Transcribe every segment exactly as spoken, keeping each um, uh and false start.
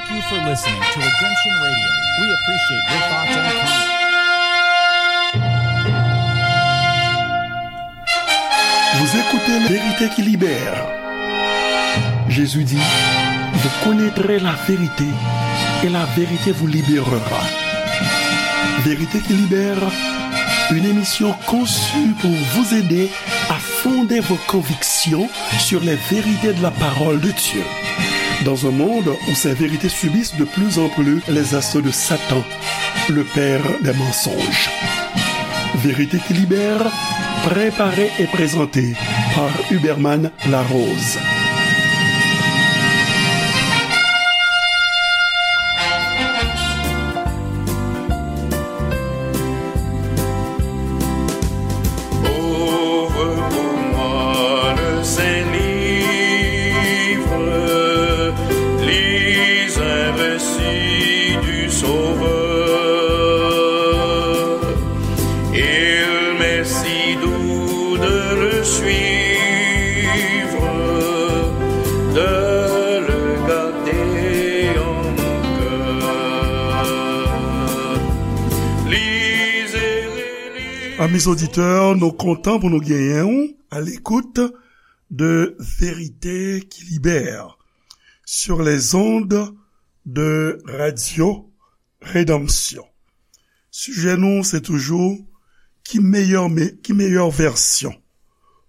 Thank you for listening to Redemption Radio. We appreciate your thoughts and comments. Vous écoutez La Vérité qui libère. Jésus dit, vous connaîtrez la vérité et la vérité vous libérera. Vérité qui libère, une émission conçue pour vous aider à fonder vos convictions sur les vérités de la parole de Dieu. Dans un monde où ces vérités subissent de plus en plus les assauts de Satan, le père des mensonges. Vérité qui libère, préparée et présentée par Huberman Larose. Ouvre pour moi le Saint-Livre, lis un récit du Sauveur. Il m'est si doux de le suivre, de le garder en mon cœur. Lisez, relisez. Amis auditeurs, nou kontan pou nou genyen w à l'écoute de Vérité qui libère sur les ondes de Radio Rédemption. Sijè nou, se toujou ki meyè, me-, ki meyè vèsyon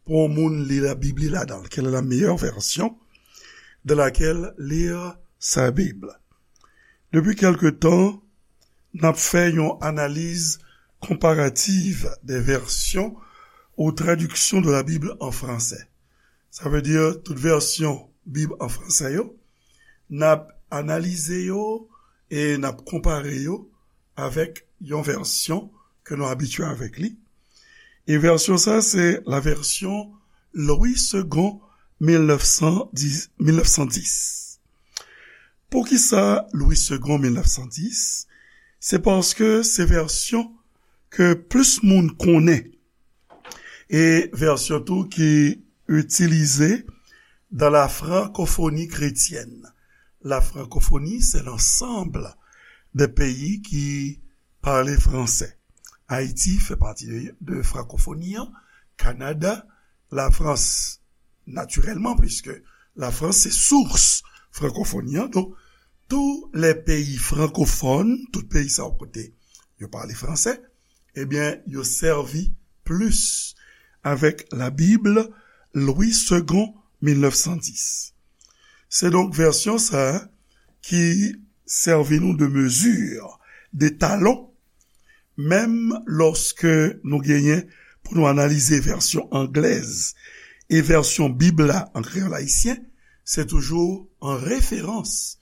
pou yon moun li Labib li ladan l. Quelle est la meilleure version de laquelle lire sa Bib? Depi kèlke tan, n ap fè yon analiz konparativ des versions ou traductions de la Bible en français. Sa vle di tout vèsyon Bib an fransè yo, n ap analize yo e n ap konpare yo avèk yon vèsyon ke nou abitye avèk li. E vèsyon sa, se la version Louis Segond mil nèf san dis, mil nèf san dis. Poukisa Louis Segond mil nèf san dis? Se paske se vèsyon ke plis moun konnen. E vèsyon tou ki itilize dans la francophonie chrétienne. La francophonie, c'est l'ensemble des pays qui parlent français. Ayiti fè pati de, de frankofoni an, Kanada, Lafrans, natirèlman, puiske Lafrans se sous frankofoni an. Donk, tous les pays francophones, tout peyi sa yo kote yo pale fransè, ebyen, yo sèvi plis avèk la Bible Louis Segond mil nèf san dis. Se donk vèsyon sa a ki sèvi nou de mezi, de talon, menm lòske nou genyen pou nou analize vèsyon anglèz e vèsyon Bib la an kreyòl ayisyen, se toujou an referans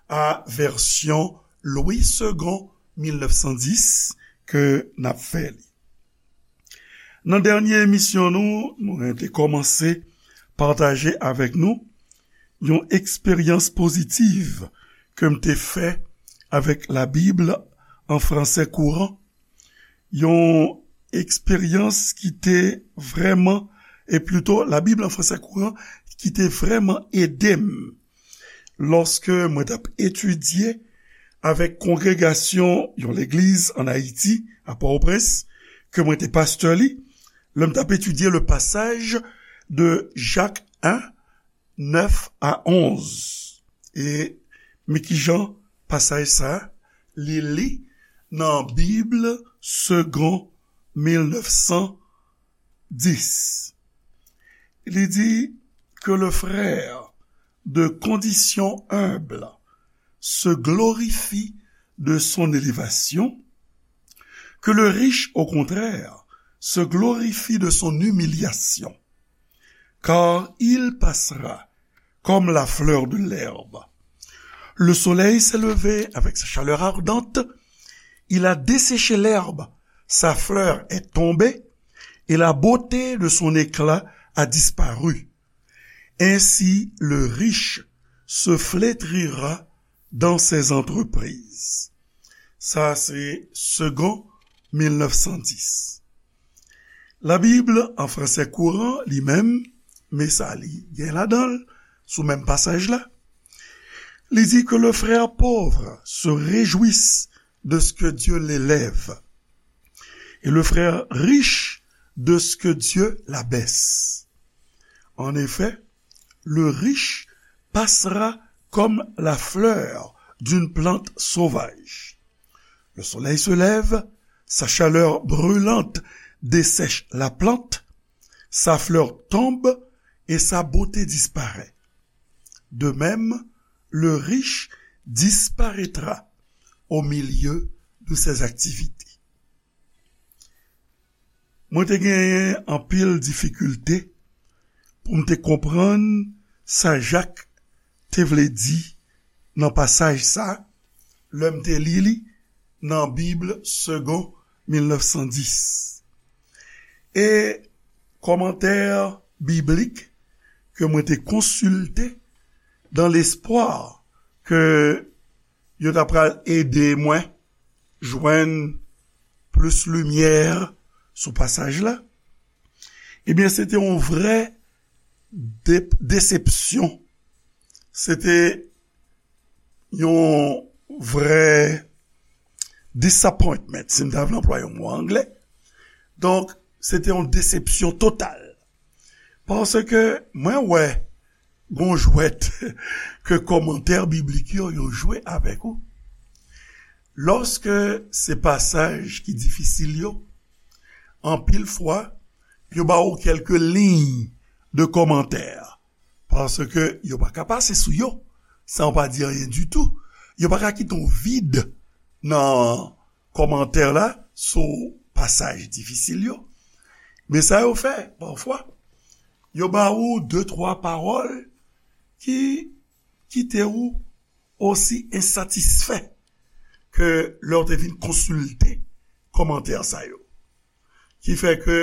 a vèsyon Louis Segond mil nèf san dis ke n ap fè li. Nan dènye emisyon nou, mwen te kòmanse pataje avèk nou yon eksperyans pozitiv ke m te fè avèk la Bib an fransè kouran. Yon eksperyans ki te vrèman, e plito la Bib an fransè kouran, ki te vrèman ede m lòske mwen t ap etidye avèk kongregasyon yon legliz ann Ayiti, a Pòtoprens, ke mwen te pastè li, lè m t ap etidye le pasaj de Jak en, nèf a onz. E men kijan pasaj sa a, li li nan Bib Segond mil nèf san dis. Li di, que le frère de condition humble se glorifie de son élévation, que le riche, au contraire, se glorifie de son humiliation, car il passera comme la fleur de l'herbe. Le soleil s'est levé avec sa chaleur ardente, il a desséché l'herbe, sa fleur est tombée, et la beauté de son éclat a disparu. Ainsi, le riche se flétrira dans ses entreprises. Sa se Segond mil nèf san dis. La Bib an fransè kouran, li menm, men sa li gen ladan l, sou menm pasaj la, Li di que le frère pauvre se réjouisse de ce que Dieu l'élève, et le frère riche de ce que Dieu l'abaisse. En effet, le riche passera comme la fleur d'une plante sauvage. Le soleil se lève, sa chaleur brûlante dessèche la plante, sa fleur tombe et sa beauté disparaît. De même, le riche disparaîtra au milieu de ses activités. Mwen te genyen anpil difikilte pou m te konprann sa Jak te vle di nan pasaj sa, lè m te li li nan Bib Segond mil nèf san dis. E kòmantè biblik ke mwen te konsilte dans l'espoir ke yo ta pral ede mwen jwenn plis limyè sou pasaj la, ebyen, se te yon vrè de-, desepsyon. Se te yon vrè disappointment, si m ta vle anplwaye yon mo anglè. Donk, se te yon desepsyon total. Paske mwen wè gon jwèt ke kòmantè biblik yo, yo jwe avèk ou. Lòske se pasaj ki difisil yo, anpil fwa, yo ba ou kèlke liy de kòmantè, paske yo pa ka pase sou yo san yo pa di anyen ditou. Yo pa ka kite yon vid nan kòmantè la sou pasaj difisil yo. Men sa yo fè, pafwa, yo ba ou de, twa pawòl ki kite ou osi ensatisfè ke lè w te vin konsilte kòmantè sa yo. Ki fè ke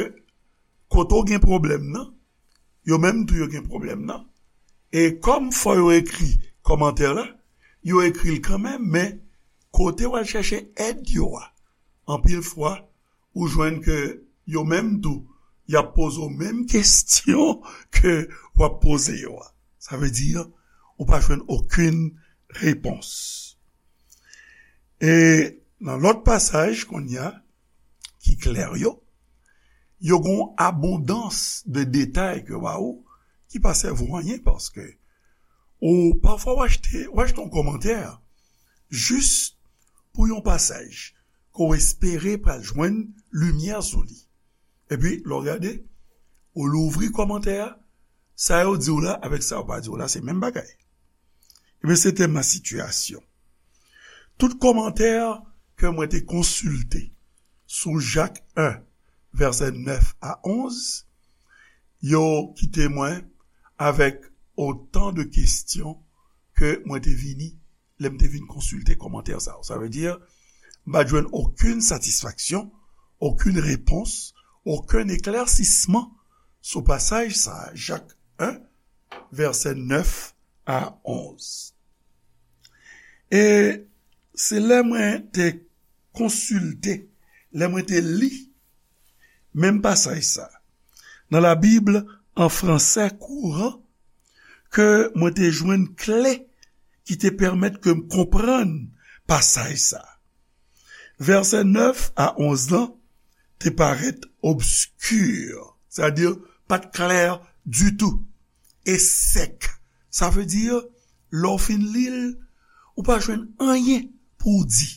kote w gen pwoblèm nan, yo menm tou yo gen pwoblèm nan. E kòm fò yo ekri kòmantè la, yo ekri l kanmenm, men kote w al chèche èd yo a, anpil fwa, ou jwenn ke yo menm tou, y ap poze w menm kesyon ke w ap poze yo a. Sa vle di, ou pa jwenn okenn repons. E nan lòt pasaj kounye a, ki klè yo, yo gon abondans de detay ke yo ba ou, ki pa sèvi w anyen, paske ou pafwa w achte, w achte yon kòmantè jis pou yon pasaj ke w espere pral jwenn limyè sou li. Epi, lè w gade, ou louvri kòmantè a, sa yo di w la avèk sa yo pa di w la, se menm bagay. Ebyen, se te ma sitiyasyon. Tout kòmantè ke mwen te konsilte sou Jak en, vèsè nèf a onz, yo kite mwen avèk otan de kesyon ke mwen te vini, lè m te vin konsilte kòmantè sa yo. Sa vle di, m pa t jwenn okenn satisfaksyon, okenn repons, okenn eklèsisman sou pasaj sa a, Jak en, vèsè nèf a onz. E se lè mwen te konsilte, lè mwen te li menm pasaj sa, nan la Bible en français courant, ke mwen te jwenn kle ki te pèmèt ke m konprann pasaj sa. Vèsè nèf a onz lan te parèt obski, sètadi pa t klè ditou, e sèk. Sa vle di, lè w fin li l, ou pa jwenn anyen pou w di.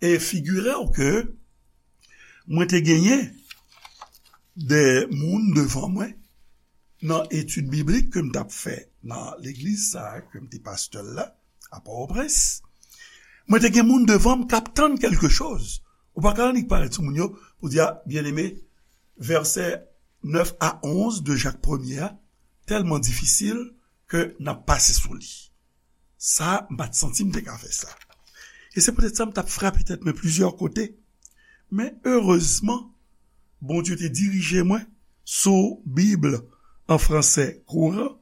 E figire w ke mwen te genyen de moun devan mwen nan etid biblik ke m t ap fè nan legliz sa a, ke m te pastè l la, a Pòtoprens. Mwen te gen moun devan m k ap tann kèlke choz. Ou pa ka annik parèt sou moun yo pou di, a, byeneme, vèsè nèf a onz de Jak premye a tèlman difisil ke n ap pase sou li. Sa, m pa t santi m te ka fè sa. E se poutèt sa m t ap frape tèt mwen plizyè kote. Men erezman, Bondye te dirije mwen sou Bib en français courant.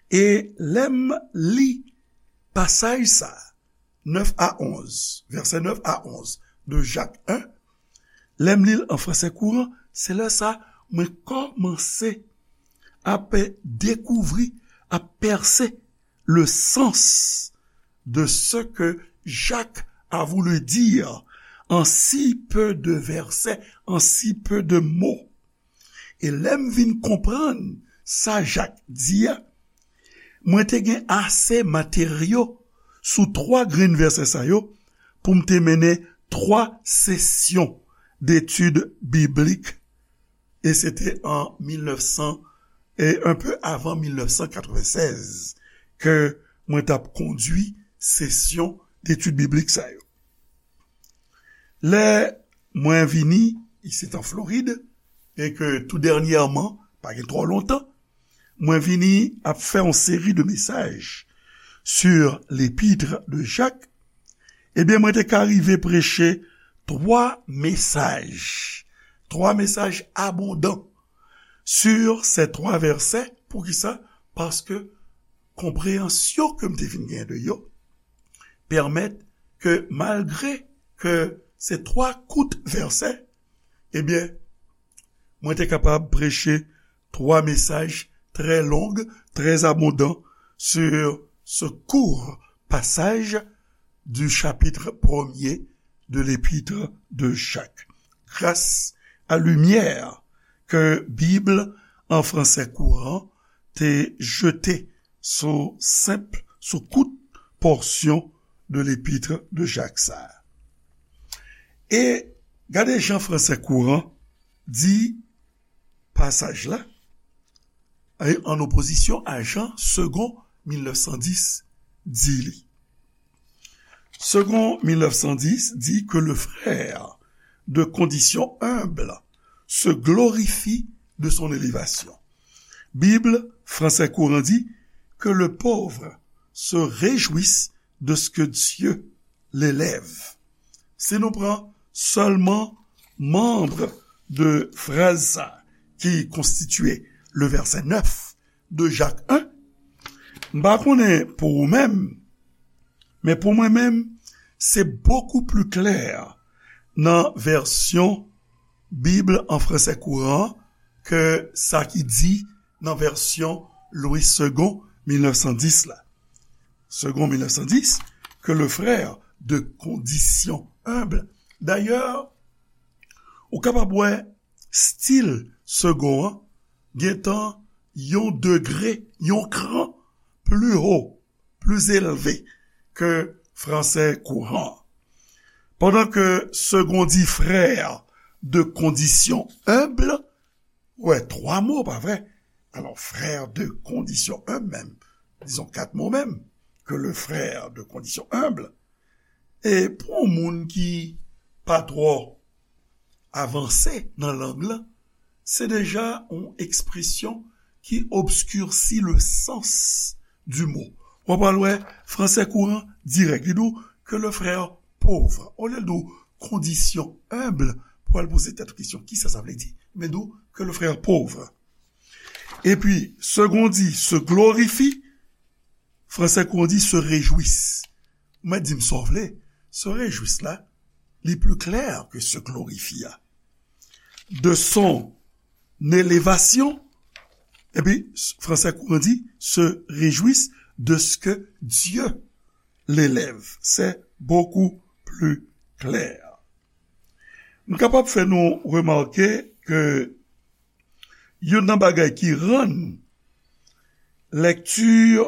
E lè m li pasaj sa, nèf a onz, vèsè nèf a onz de Jak en, lè m li l an fransè kouran, se lè sa mwen kòmanse ap dekouvri, ap pèse le sans, de ce que Jacques a voulu dire en si peu de versets, en si peu de mots. E lè m vin konprann sa Jak di a, mwen te gen ase materyo sou twa grenn vèsè sa yo pou m te mennen twa sesyon detid biblik. E se te an mil nèf san, e un peu avant mil nèf san katrevennsèz, ke mwen t ap kondui sesyon detid biblik sa yo. Lè mwen vini isit an Florid, e ke tou dènyèman, pa gen twò lontan, mwen vini ap fè yon seri de mesaj sur l'épître de Jacques, ebyen, mwen te ka rive preche twa mesaj, twa mesaj abondan sur ces trois versets. Poukisa? Paske konpreyansyon ke m te vin gen de yo pèmèt ke, malgre ke se twa kout vèsè, ebyen, mwen te kapab preche twa mesaj trè long, trè abondan sur ce court passage du chapitre premier de l'épître de Jacques. Gras a limyè ke Bib an fransè kouran te jete sou senp, sou kout pòsyon de l'épître de Jacques sa a. E gade jan fransè kouran di pasaj la, e an opozisyon a jan Segond mil nèf san dis di li. Segond mil nèf san dis dit que le frère de condition humble se glorifie de son élévation. Bib fransè kouran di que le pauvre se réjouisse de ce que Dieu l'élève. Si nou pran sèlman manb de fraz sa ki konstitye le vèsè nèf de Jak en, m pa konnen pou ou menm, men pou mwen menm, se bokou pli klè nan vèsyon Bib an fransè kouran ke sa ki di nan vèsyon Louis Segond mil nèf san dis la. Segond mil nèf san dis, que le frère de condition humble. Dayè, ou kapab wè stil Segond an gentan yon degre, yon kran pli wo, pli elve ke fransè kouran. Pandan ke Segond di frère de condition humble, wè, twa mo, pa vre? Alò, frère de condition humble menm, dizon kat mo menm, que le frère de condition humble. E pou yon moun ki pa twò avanse nan lang lan, se deja yon ekspresyon ki obskirsi le sens du mot. W ap al wè fransè kouran dirèk, li di w que le frère pauvre. Olye l di w condition humble, pou al poze tèt ou kesyon, kisa sa vle di? Men di w que le frère pauvre. Epi, Segond di se glorifie, fransè kouran di se réjouisse. Ou mèt di m sa w vle, se réjouisse la, li pli klè ke se glorifie a. De son élévation, epi fransè kouran di se réjouisse de ce que Dieu l'élève. C'est beaucoup plus clair. M kapab fè nou remake ke youn nan bagay ki rann lèkti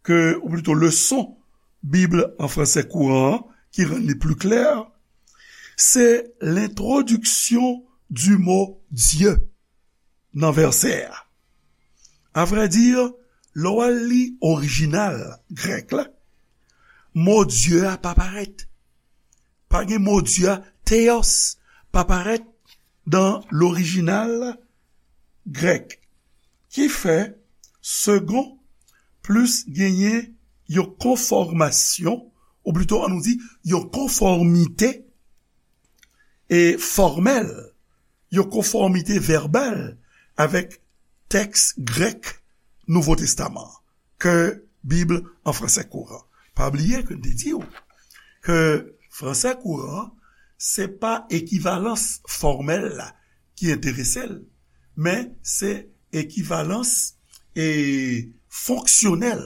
ke, ou plito leson Bib an fransè kouran an, ki rann li pli klè, se lentwodiksyon di mo Dye nan vèsè a. A vrè di, lè w al li orijinal grèk la, mo Dye a pa parèt. Pa gen mo Dye a, theos, pa parèt nan lorijinal grèk. Ki fè Segond plis genyen yon konfòmasyon, ou plito, ann nou di, yon konfòmite e fòmèl, yon konfòmite vèbal avèk tèks grèk Nouvo Testaman an, ke Bib an fransè kouran. Pa bliye ke n te di w ke fransè kouran, se pa ekivalans fòmèl la ki enterese l, men se ekivalans e fonksyonèl,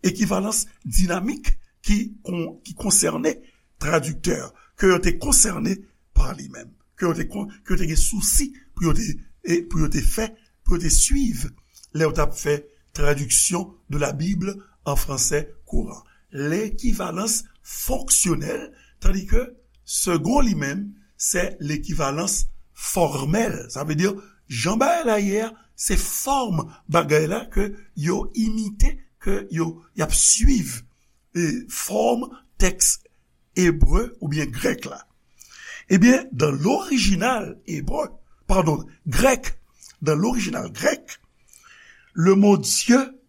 ekivalans dinamik ki, kon, ki konsène tradiktè, ke yo te konsène pa li menm, ke yo te, kon, ke yo te gen sousi pou yo te, e pou yo te fè, pou yo te swiv lè yo t ap fè traduction de la Bible en français courant. L'équivalence fonctionnelle, tandis que second li menm, c'est l'équivalence formelle. Sa vle di, jan bagay la ye a, se fòm bagay la ke yo imite, ke yo, y ap swiv, e, fòm tèks ebre oubyen grèk la. Ebyen, dans l'original hébreu, pardon, grec, dans l'original grec, le mot Dieu,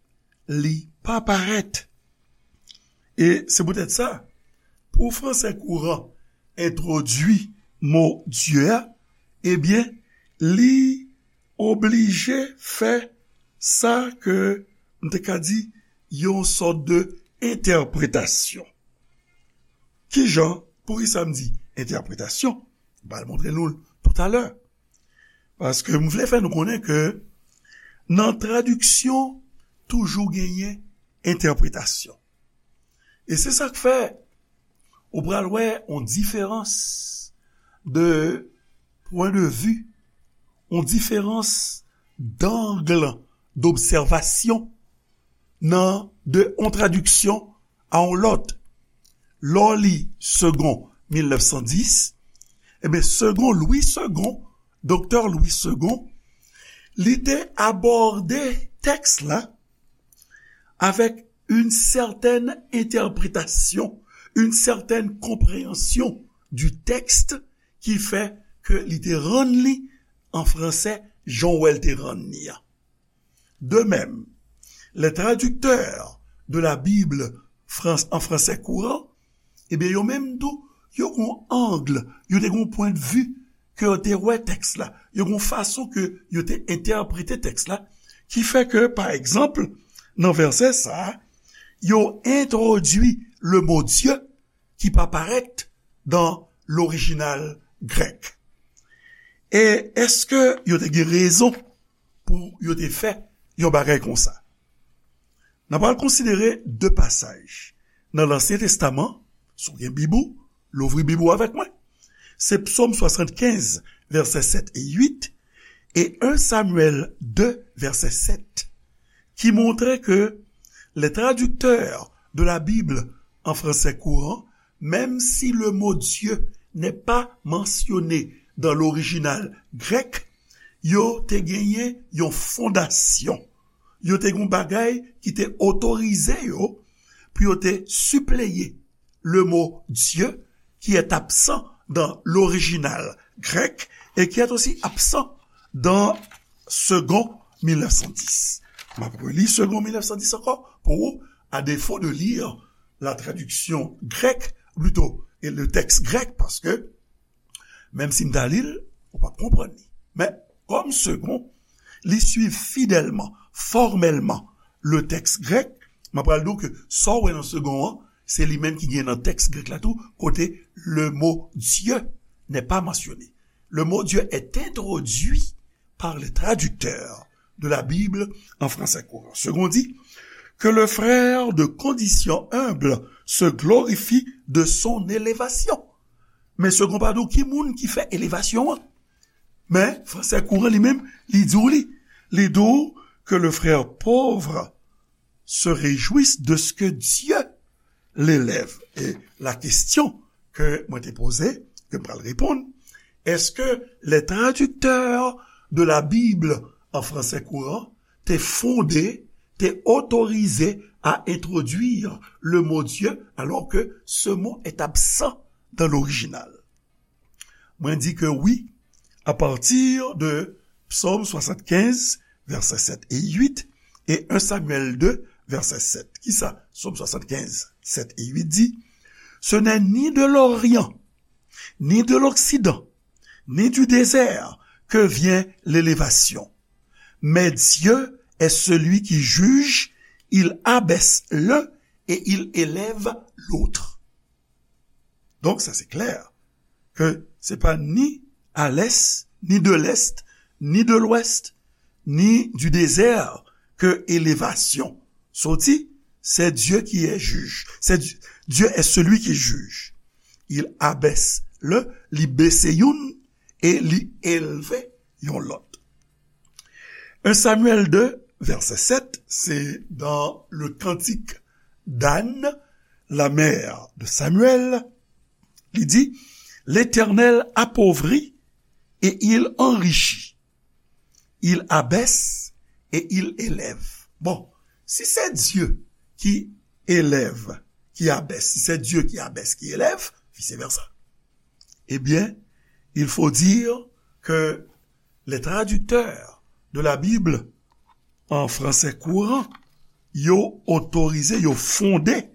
li pa parèt. E se poutèt sa, pou fransè kouran entwodui mo Dye a, ebyen, li oblije fè sa ke m te ka di yon sòt de entèpretasyon. Kijan, poukisa m di entèpretasyon? M pral montre nou l toutalè. Paske m vle fè nou konnen ke nan tradiksyon, toujou genyen entèpretasyon. E se sa k fè ou pral wè yon diferans de pwen de vi, yon diferans d'angle d'observation nan de yon tradiksyon a yon lòt. Lè w li Segond mil nèf san dis, ebyen, Segond Louis Segond, Doktè Louis Segond, li te abòde tèks la avèk une certaine interprétation, une certaine compréhension du texte ki fè ke li te rann li an fransè jan w wè l te rann li a. De même, les traducteurs de la Bible France, en français courant, ebyen, yo menm tou, yo gon ang, yo te gon pwen de vi ke yo te wè tèks la, yo gon fason ke yo te entèprete tèks la, ki fè ke, pa egzanp, nan vèsè sa a, yo entwodui le mo Dye ki pa parèt dan lorijinal grèk. E èske yo te gen rezon pou yo te fè yon bagay konsa? N ap pral konsidere de pasaj nan Lansyen Testaman, si w gen Bib ou, louvri Bib ou avèk mwen. Se Psòm swasannkenz, vèsè sèt e uit, e en Samyèl de, vèsè sèt, ki montre ke les traducteurs de la Bible en français courant, même si le mot Dieu n'est pas mentionné dans l'original grec, yo te genyen yon fondasyon. Yo te gen yon bagay ki te otorize yo pou yo te sipleye le mot Dieu, qui est absent dans l'original grec et qui est aussi absent dans Segond mil nèf san dis. M ap reli Segond mil nèf san dis ankò pou ou, à défaut de lire la traduction grecque, plutôt, et le texte grec, paske menm si m ta li l, ou p ap konprann li. Men, kòm Segond, li swiv fidèlman, fòmèlman, le texte grec, m ap pral di w ke sa w wè nan Segond an, se li menm ki gen nan tèks grèk la tou, kote le mot Dieu n'est pas mentionné. Le mot Dieu est introduit par les traducteurs de la Bible en français courant. Segond dit, que le frère de condition humble se glorifie de son élévation. Men Segond pa di w ki moun ki fè elevasyon an. Men, fransè kouran li menm, li di w li. Li di w que le frère pauvre se réjouisse de ce que Dieu l'élève. E la kesyon ke mwen te poze, ke m pral reponn, èske les traducteurs de la Bible en français courant te fonde, te otorize à introduire le mot Dieu, alors que ce mot est absent dans l'original? Mwen di ke wi, à partir de Psaume soixante-quinze, vèsè sèt e uit, e en Samyèl de, vèsè sèt. Kisa Psaume soixante-quinze, sèt e uit di? Ce n'est ni de l'Orient, ni de l'Occident, ni du désert que vient l'élévation. Mais Dieu est celui qui juge, il abaisse l'un et il élève l'autre. Donk, sa se klè, ke se pa ni à l'est, ni de l'est, ni de l'ouest, ni du désert ke elevasyon soti, c'est Dieu qui est juge. C'est Dieu, Dieu est celui qui juge. Il abaisse le, li bese youn e li elve yon lòt. Un Samuel deux, verset sept, c'est dans le cantique d'Anne, la mère de Samuel. Li di, L'Éternel appauvrit et il enrichit. Il abaisse et il élève. Bon, si c'est Dieu qui élève, qui abaisse, si c'est Dieu qui abaisse, qui élève, vice-versa, eh bien, il faut dire que les traducteurs de la Bible en français courant, yo otorize, yo fonde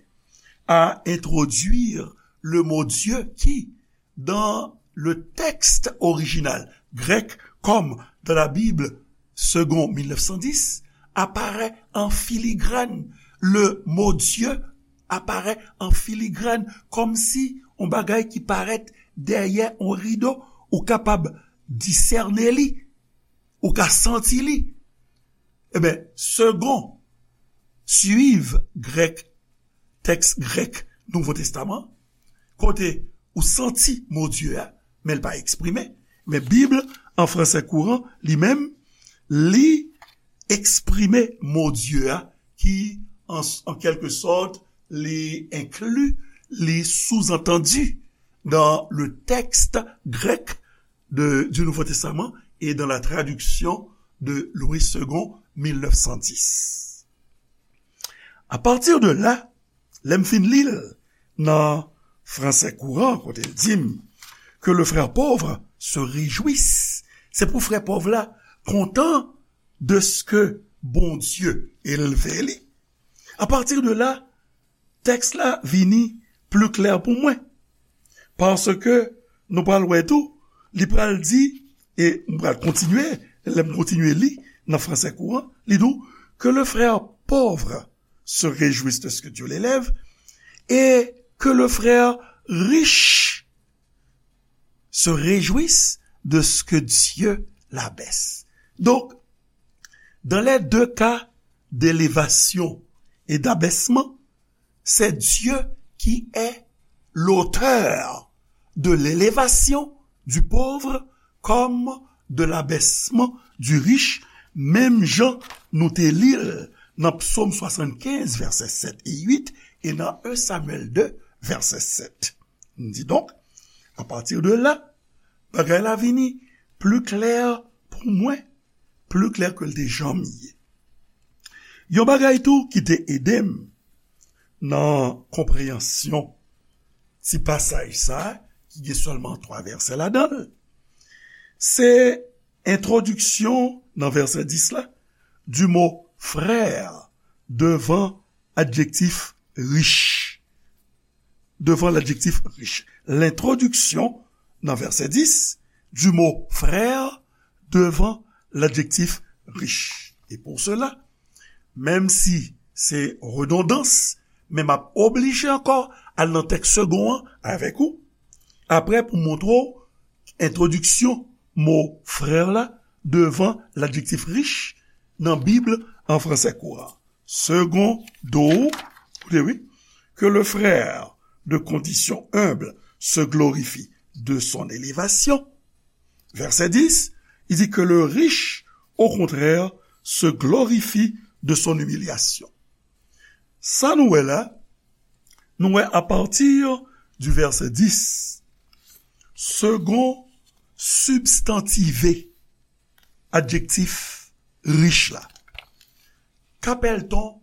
à introduire le mot Dieu qui, dans le texte original grec, comme dans la Bible Segond mil nèf san dis, apparaît en filigrane. Le mot Dieu apparaît en filigrane, kòmsi yon bagay ki parèt dèyè yon rido, ou kapab disène li, ou ka santi li. Ebyen, Segond, suiv grèk, tèks grèk Nouvo Testaman, kote ou santi mo Dye a, men l pa eksprime. Men Bib an fransè kouran, li menm, li eksprime mo Dye a, ki, an, an kèlke sòt, li enkli, li sous-entendu dans le texte grec de, du Nouveau Testament et dans la traduction de Louis Segond, mil nèf san dis. A pati de la, lè m fin li l nan fransè kouran, kote l di m, que le frère pauvre se réjouisse, se pou frè pòv la kontan de ce que Bondye elve li. A pati de la, tèks la vini pli klè pou mwen. Paske nou pral wè tou, li pral di, e m pral kontinye, lè m kontinye li nan fransè kouran, li di w, que le frère pauvre se réjouisse de ce que Dieu l'élève, et que le frère riche se réjouisse de ce que Dieu l'abaisse. Donc, dans les deux cas d'élévation et d'abaissement, c'est Dieu qui est l'auteur de l'élévation du pauvre comme de l'abaissement du riche, menm jan nou te li l nan Psaume soixante-quinze, vèsè sèt e uit, e nan un Samuel deux, vèsè sèt. M di donk, a pati de la, bagay la vini pli klè pou mwen, pli klè ke l te janm ye. Yon bagay tou ki te ede m nan konpreyansyon ti pasaj sa a, ki gen sèlman twa vèsè ladan l, se entwodiksyon nan vèsè dis la, du mot frère devan adjektif riche. Devan ladjektif riche. L'introduction, nan vèsè dis, du mot frère devan ladjektif riche. Et pour cela, menm si se redondans, men m ap oblije ankò al nan tèks segon an avèk ou, apre pou montre w entwodiksyon mo frè la devan ladjektif riche nan Bib an fransè kouran. Segond, koute wi, que le frère de condition humble se glorifie de son élévation. Verset dix, il dit que le riche, au contraire, se glorifie de son humiliation. Sa nou wè la, nou wè a pati du verset dix, segon sibstantive adjektif rich la. Qu'appelle-t-on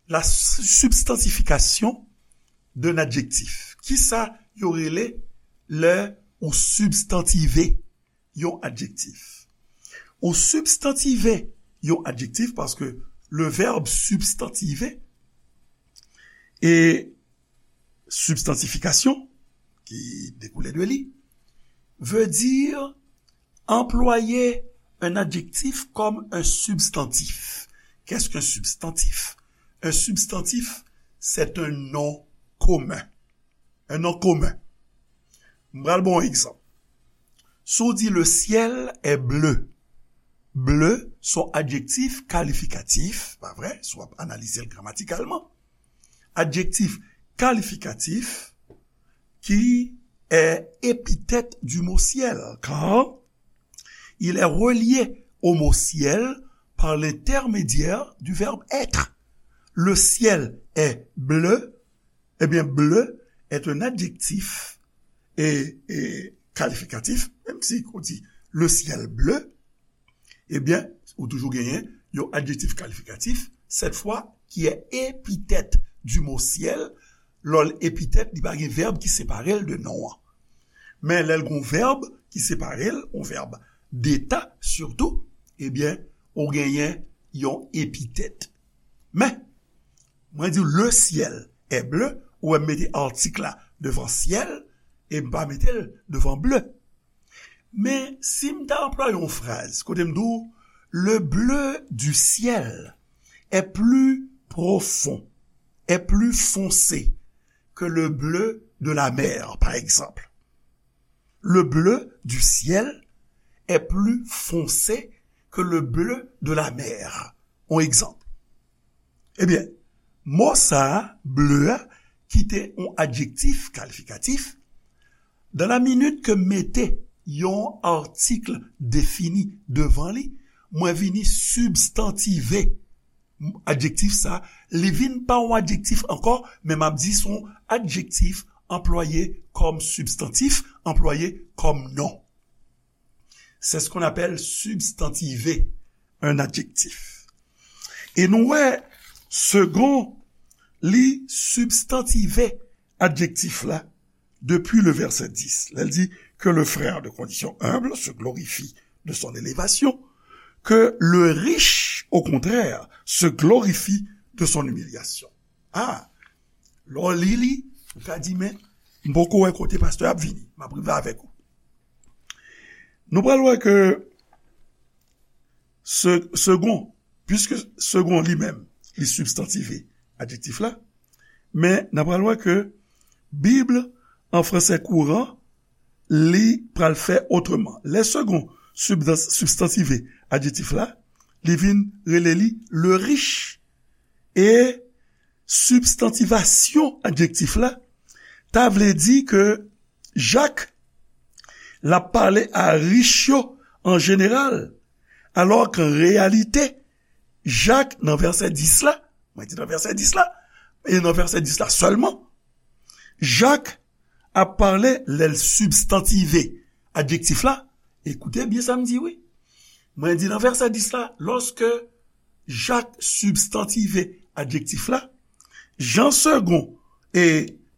la substantification d'un adjectif? Kisa yo rele lè ou sibstantive yon adjektif? Ou sibstantive yon adjektif paske le verbe substantiver e substantification, qui découle de li, veut dire employer un adjectif comme un substantif. Qu'est-ce qu'un substantif? Un substantif, c'est un nom commun. Un nom commun. M pral ba w yon egzanp. Si w di le ciel est bleu, bleu se yon adjektif kalifikatif, pa vre, si w ap analize l gramatikalman. Adjektif qualificatif qui est épithète du mot ciel, car il est relié au mot ciel par l'intermédiaire du verbe être. Le ciel est bleu. Eh bien, bleu est un adjectif et, et qualificatif, menm si ou di le ciel bleu, ebyen, ou toujou genyen yon adjektif kalifikatif, cette fois, qui est épithète du mot ciel. Lè l epitèt, li pa gen vèb ki separe l de non an. Men lè l gon vèb ki separe l, yon vèb deta sitou, ebyen, ou genyen yon epitèt. Men, mwen di le ciel est bleu, ou wè m mete artik la devan ciel, e m pa mete l devan bleu. Men si m ta anplwaye yon fraz kote m di w, le bleu du ciel est plus profond, est plus foncé que le bleu de la mer, par exemple. Le bleu du ciel est plus foncé que le bleu de la mer. On egzanp. Ebyen, mo sa a, bleu a, ki te yon adjektif kalifikatif, dans la minute ke m mete yon artik defini devan li, mwen vini sibstantive adjektif sa, li vin pa yon adjektif ankò, men m ap di se yon adjektif anplwaye kòm sibstantif, anplwaye kòm non. C'est ce qu'on appelle substantiver un adjectif. E nou wè, Segond, li sibstantive adjektif la depi le vèsè dis. Lè l di que le frère de condition humble se glorifie de son élévation, que le riche, au contraire, se glorifie de son humiliation. Ah, lè w li li, ou ka di, men, m poko wè kote pastè ap vini. M ap rive avèk ou. Nou pral wè ke se, segond, puiske segond li menm, li sibstantive adjektif la, men n ap pral wè ke Bib an fransè kouran, li pral fè otreman. Lè segond sibstans-, sibstantive adjektif la, li vin rele li le riche. E sibstantivasyon adjektif la, ta vle di ke Jak, l ap pale a rich yo an jeneral, alò ke an reyalite, Jak, nan vèsè dis la, mwen di nan vèsè dis la, e nan vèsè dis la sèlman, Jak ap pale lè l sibstantive adjektif la. Ekoute byen sa m di, wi. Mwen di nan vèsè dis la, lòske Jak sibstantive adjektif la, jan segond e,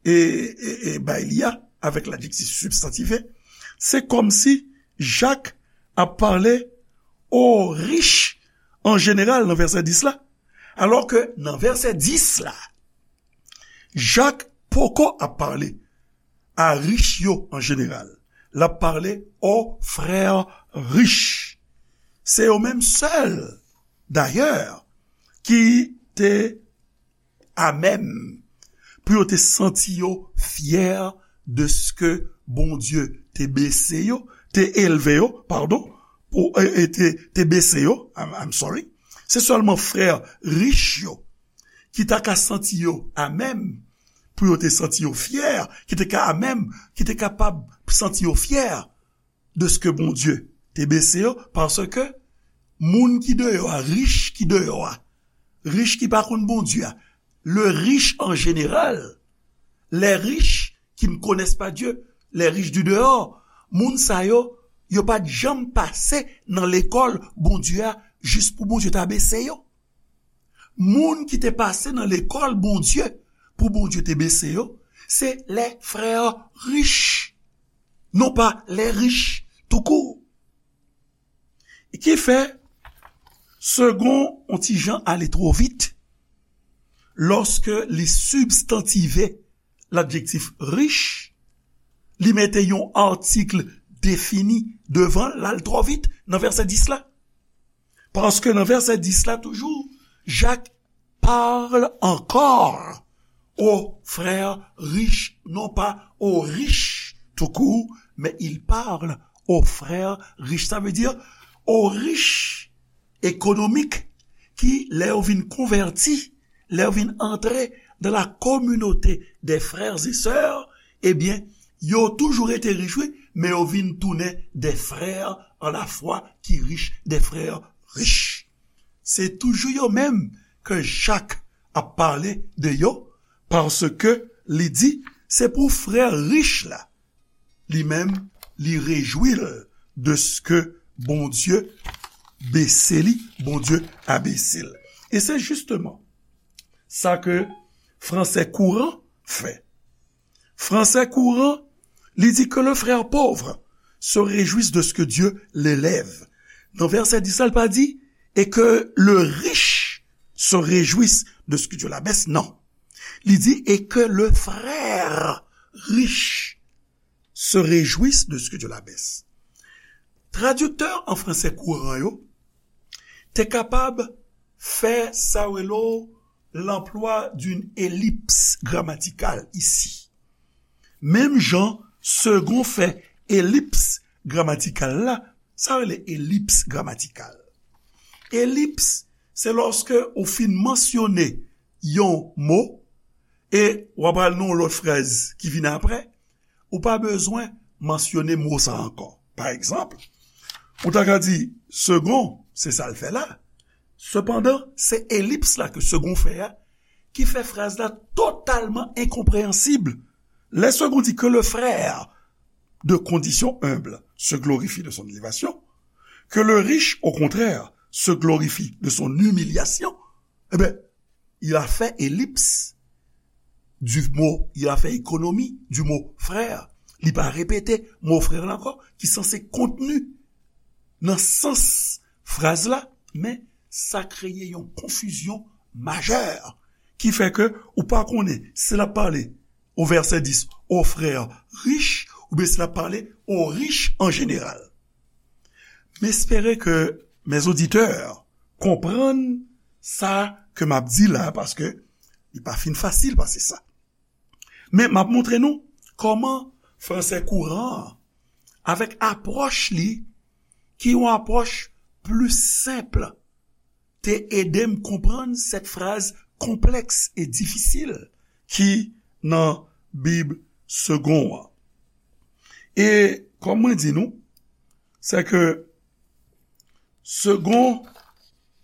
e, e, e bay li a avèk ladjektif sibstantive, se kòmsi Jak ap pale o rich an jeneral nan vèsè dis la, alò ke nan vèsè dis la, Jak poko ap pale a rich yo an jeneral. L ap pale o frè rich. Se yo menm sèl, dayè, ki te amèm pou yo te santi yo fyè de ske Bondye te bese yo, te elve yo, padon, pou, e, e te, te bese yo, I'm, I'm sorry. Se sèlman frè rich yo ki ta ka santi yo amèm pou yo te santi yo fyè, ki te ka amèm, ki te kapab santi yo fyè de ske Bondye te bese yo, paske moun ki deyò a, rich ki deyò a, rich ki pa konn Bondye a, le riche en général, les riches qui ne connaissent pas Dieu, les riches du dehors, moun sa yo, yo pa t janm pase nan lekòl Bondye a jis pou Bondye ta bese yo. Moun ki te pase nan lekòl Bondye pou Bondye te bese yo, se les frères riches, non pa les riches tout court. Ki fè, segond yon ti jan ale twò vit, lòske li sibstantive ladjektif rich, li mete yon atik defini devan l, l al twò vit nan vèsè dis la. Paske nan vèsè dis la toujou, Jak parle encore aux frères riches, non pas aux riches tout court, mais il parle aux frères riches. Sa vle di, aux riches économiques ki, lè yo vin konvèti, lè yo vin antre dans la communauté des frères et sœurs, ebyen, yo toujou rete rich, wi, men yo vin tounen des frères en la foi ki rich, des frères rich. Se toujou yo menm ke Jak ap pale de yo, paske li di, se pou frè rich la, li menm, li rejwi l de ce que Bondye bese li, Bondye abese l. E se jisteman sa ke Français Courant fè. Français Courant, li di que le frère pauvre se réjouisse de ce que Dieu l'élève. Nan vèsè dis la, li pa di, et que le riche se réjouisse de ce que Dieu l'abaisse, non. Li di, et que le frère riche se réjouisse de ce que Dieu l'abaisse. Tradiktè an fransè kouran yo te kapab fè sa yo rele l'emploi d'une ellipse grammaticale ici. Menm jan Segond fè elips gramatikal la, sa yo rele elips gramatikal. Elips, se lòske ou fin mansyone yon mo e w ap al nan yon lòt fraz ki vin apre, ou pa bezwen mansyone mo sa ankò. Pa egzanp, ou ta ka di, Segond, se sa l fè la. Sepandan, se elips la ke Segond fè a ki fè fraz la totalman enkonpreyansib. Lè Segond di que le frère de condition humble se glorifie de son élévation, que le riche, au contraire, se glorifie de son humiliation, eh bien, il a fait ellipse du mot, il a fait économie du mot frère. Li pa repete mo frè la ankò, ki sanse kontni nan sans fraz la, men sa kreye yon konfizyon majè ki fè ke ou pa konnen si l ap pale o vèsè dis o frè rich oubyen si l ap pale o rich an jeneral. M espere ke mes auditeurs konprann sa ke m ap di la, paske li pa fin fasil pase sa. Men m ap montre nou kòman fransè kouran an, avèk apwòch li, ki yon apwòch pli senp, te ede m konprann sèt fraz konplèks e difisil ki nan Bib Segond an. E kòm mwen di nou, se ke Segond,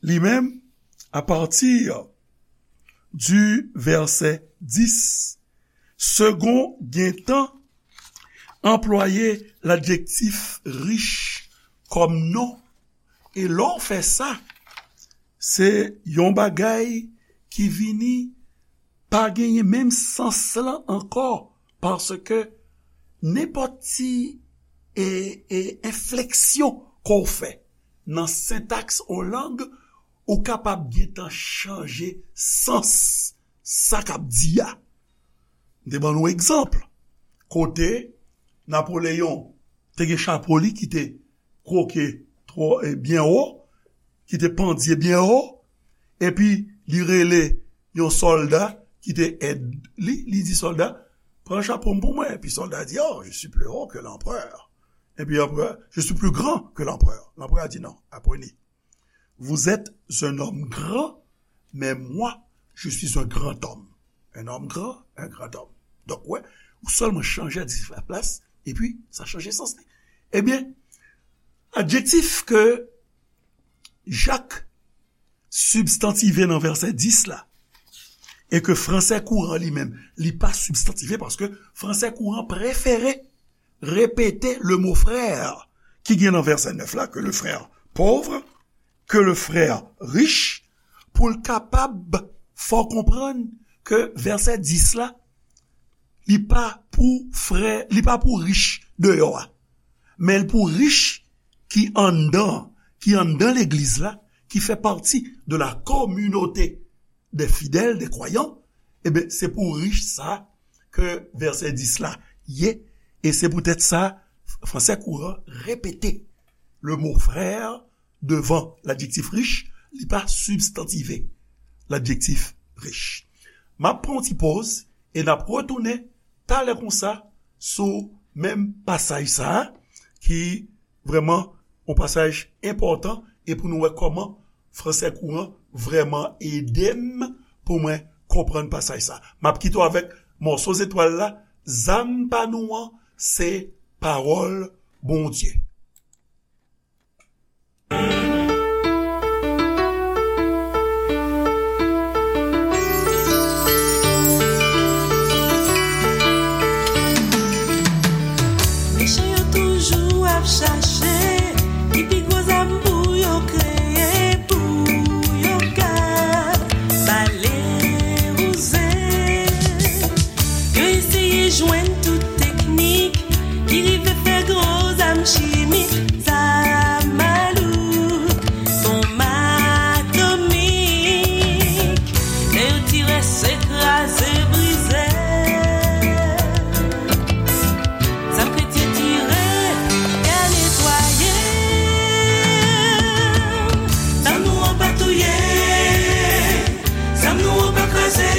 li menm, à partir du verset dix, Segond gentan anplwaye ladjektif rich kòm non. E lè w fè sa, se yon bagay ki vini pa genyen menm sans lan ankò, paske nenpòt ti e, e enfleksyon ke w fè nan sentaks yon lang, ou kapab gentan chanje sans sa k ap di a. M te ban nou egzanp kote Napoleyon te gen chapo li ki te kwoke twò, e, byen wo, ki te pandye byen wo, epi li rele yon sòlda ki te èd li, li di, sòlda, pran chapo m pou mwen. Epi sòlda di, oh, je suis plus haut que l'empereur. Epi anperè, je suis plus grand que l'empereur. Lanperè a di, non, apre ni. Vous êtes un homme grand, mais moi, je suis un grand homme. Un homme grand, un grand homme. Donk, wè, ou sèlman chanje adjektif la plas, epi sa chanje sans li. Ebyen, adjektif ke Jak sibstantive nan vèsè dis la, e ke fransè kouran li menm, li pa sibstantive, paske fransè kouran prefere repete le mo frère ki gen nan vèsè nèf la, que le frère pauvre, que le frère riche, pou l kapab fè w konprann ke vèsè dis la, li pa pou frè, li pa pou rich deyò a, men l pou rich ki anndan, ki anndan legliz la, ki fè pati de la communauté des fidèles, des croyants, ebyen, se pou rich sa ke vèsè dis la ye, e se poutèt sa, fransè kouran repete le mo frère devan ladjektif rich, li pa sibstantive ladjektif rich. M ap pran yon ti poz e n ap retounen talè konsa sou menm pasaj sa a, ki vrèman yon pasaj enpòtan, e pou nou wè kòman fransè kouran vrèman ede m pou mwen konprann pasaj sa. M ap kite w avèk mòso zetwal la, zam pa nou an, se pawòl Bondye. Mechan yo toujou ap chache ki pi gwo zam pou yo kreye, pou yo ka bale wouze. Yo eseye jwenn tout teknik ki rive fè gwo zam chimik, zam malouk, bonm atomik. Lè yo tire, se kraze, brize. Zam kretyen tire, y a netwaye. Zam nou an pa touye. Zam nou an pa kraze.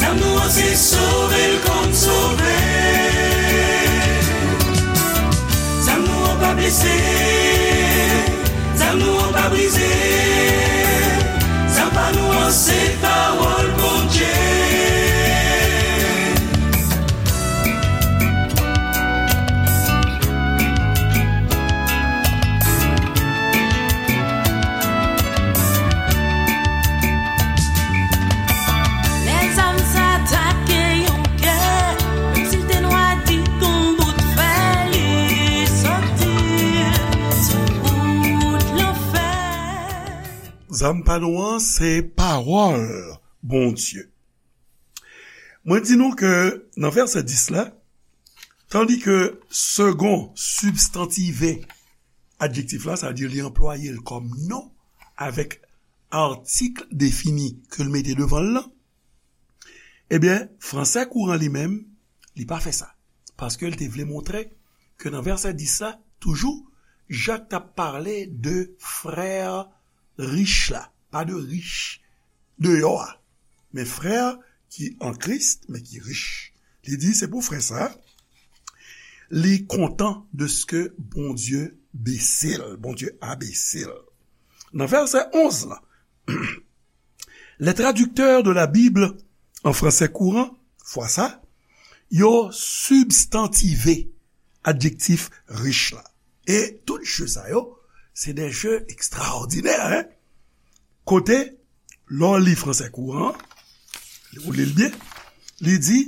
Zam nou an se sove l kòm sove. Zam nou an pa blese. Zam nou an pa brize. Zam pa nou an se pawòl Bondye. Lè zam sa atake yon kè, menm si l te nwa di kon bout fè, li soti sou wout lanfè. Zam pa nou an, se pawòl Bondye. Mwen di nou ke nan vèsè dis la, tandi ke segon sibstantive adjektif la, sa vle di li anplwaye l kòm non avèk atik defini ke l mete devan l lan, ebyen, fransè kouran li menm, li pa fè sa. Paske l te vle montre ke nan vèsè dis la, toujou, Jak t ap pale de frè rich la, pa de rich deyò a, men frè ki an Kris, men ki rich. Li di se pou frè sa, li kontan de ce que Bondye bese l, Bondye abese l. Nan vèsè onz la, les traducteurs de la Bible en français courant, fwa sa, yo sibstantive adjektif rich la. E tout je sa yo, se de je ekstraòdinè, hein? Kote, lè w li fransè kouran, ou li l byen, li di,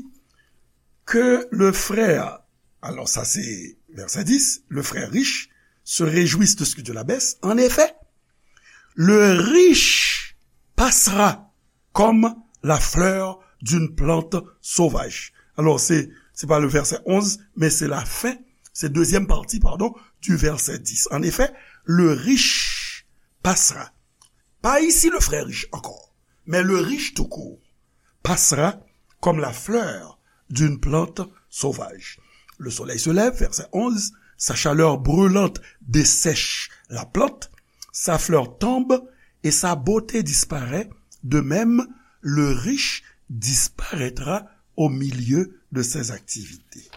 que le frère, alors ça c'est verset dix, le frère riche se réjouisse de ce que Dieu l'abaisse. En effet, le riche passera comme la fleur d'une plante sauvage. Alors, c'est, c'est pas le verset onze, mais c'est la fin, c'est deuxième partie, pardon, du verset dix. En effet, le riche passera. Pas ici le frère riche encore, mais le riche tout court passera comme la fleur d'une plante sauvage. Le soleil se lève, verset onze, sa chaleur brûlante dessèche la plante, sa fleur tombe et sa beauté disparaît, de même le riche disparaîtra au milieu de ses activités.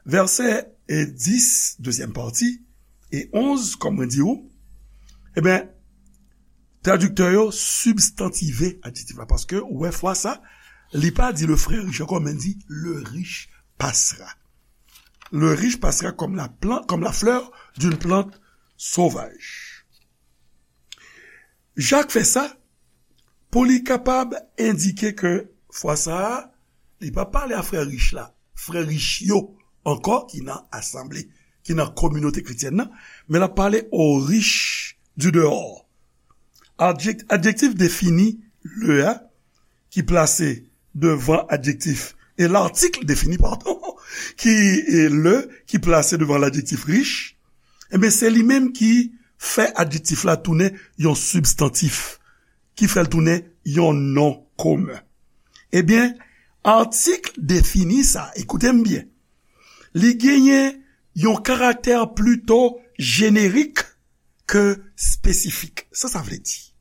Vèsè, e, dis, dezyèm pati, e onz, kòm mwen di ou, ebyen, tradiktè yo sibstantive adjektif la, paske ou wè fwa sa, li pa di le frère riche ankò, men di le riche passera. Le riche passera comme la plan-, comme la fleur d'une plante sauvage. Jak fè sa pou li kapab endike ke fwa sa a, li pa pale a frè rich la, frè rich yo ankò ki nan asanble, ki nan kominote kretyèn nan, men l ap pale aux riches du dehors. Adjek-, adjektif defini le a ki plase devan adjektif, e latik defini, padon, ki, e le, ki plase devan ladjektif rich, ebyen, se li menm ki fè adjektif la tounen yon sibstantif, ki fè l tounen yon non komen. Ebyen, atik defini sa, ekoute m byen, li genyen yon karaktè plito jenerik ke espesifik. Sa sa vle di?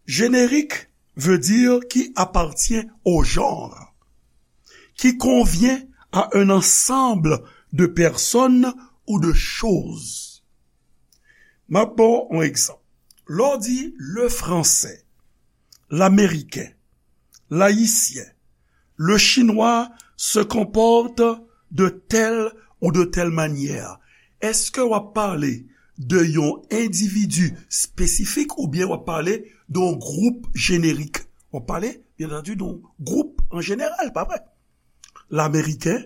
Générique veut dire qui appartient au genre, qui convient à un ensemble de personnes ou de choses. M ap ba w yon egzanp. Lè w di le français, L'Américain, l'Haïtien, le Chinois se comporte de telle ou de telle manière. Èske w ap pale de yon endividi espesifik oubyen w ap pale de yon gwoup jenerik? W ap pale, byen antandi, de yon gwoup an jeneral, pa vre? L'Américain,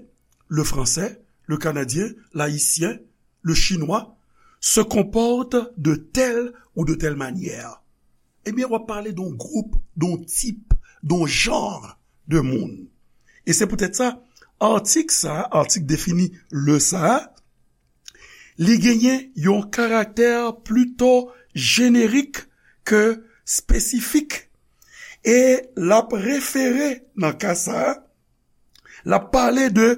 le Français, le Canadien, l'Haïtien, le Chinois se comporte de telle ou de telle manière. Ebyen, w ap pale de yon gwoup, de yon tip, de yon jan de moun. E se poutèt sa, atik sa, atik defini le sa, li genyen yon karaktè plito jenerik ke espesifik. E l ap refere, nan ka sa, l ap pale de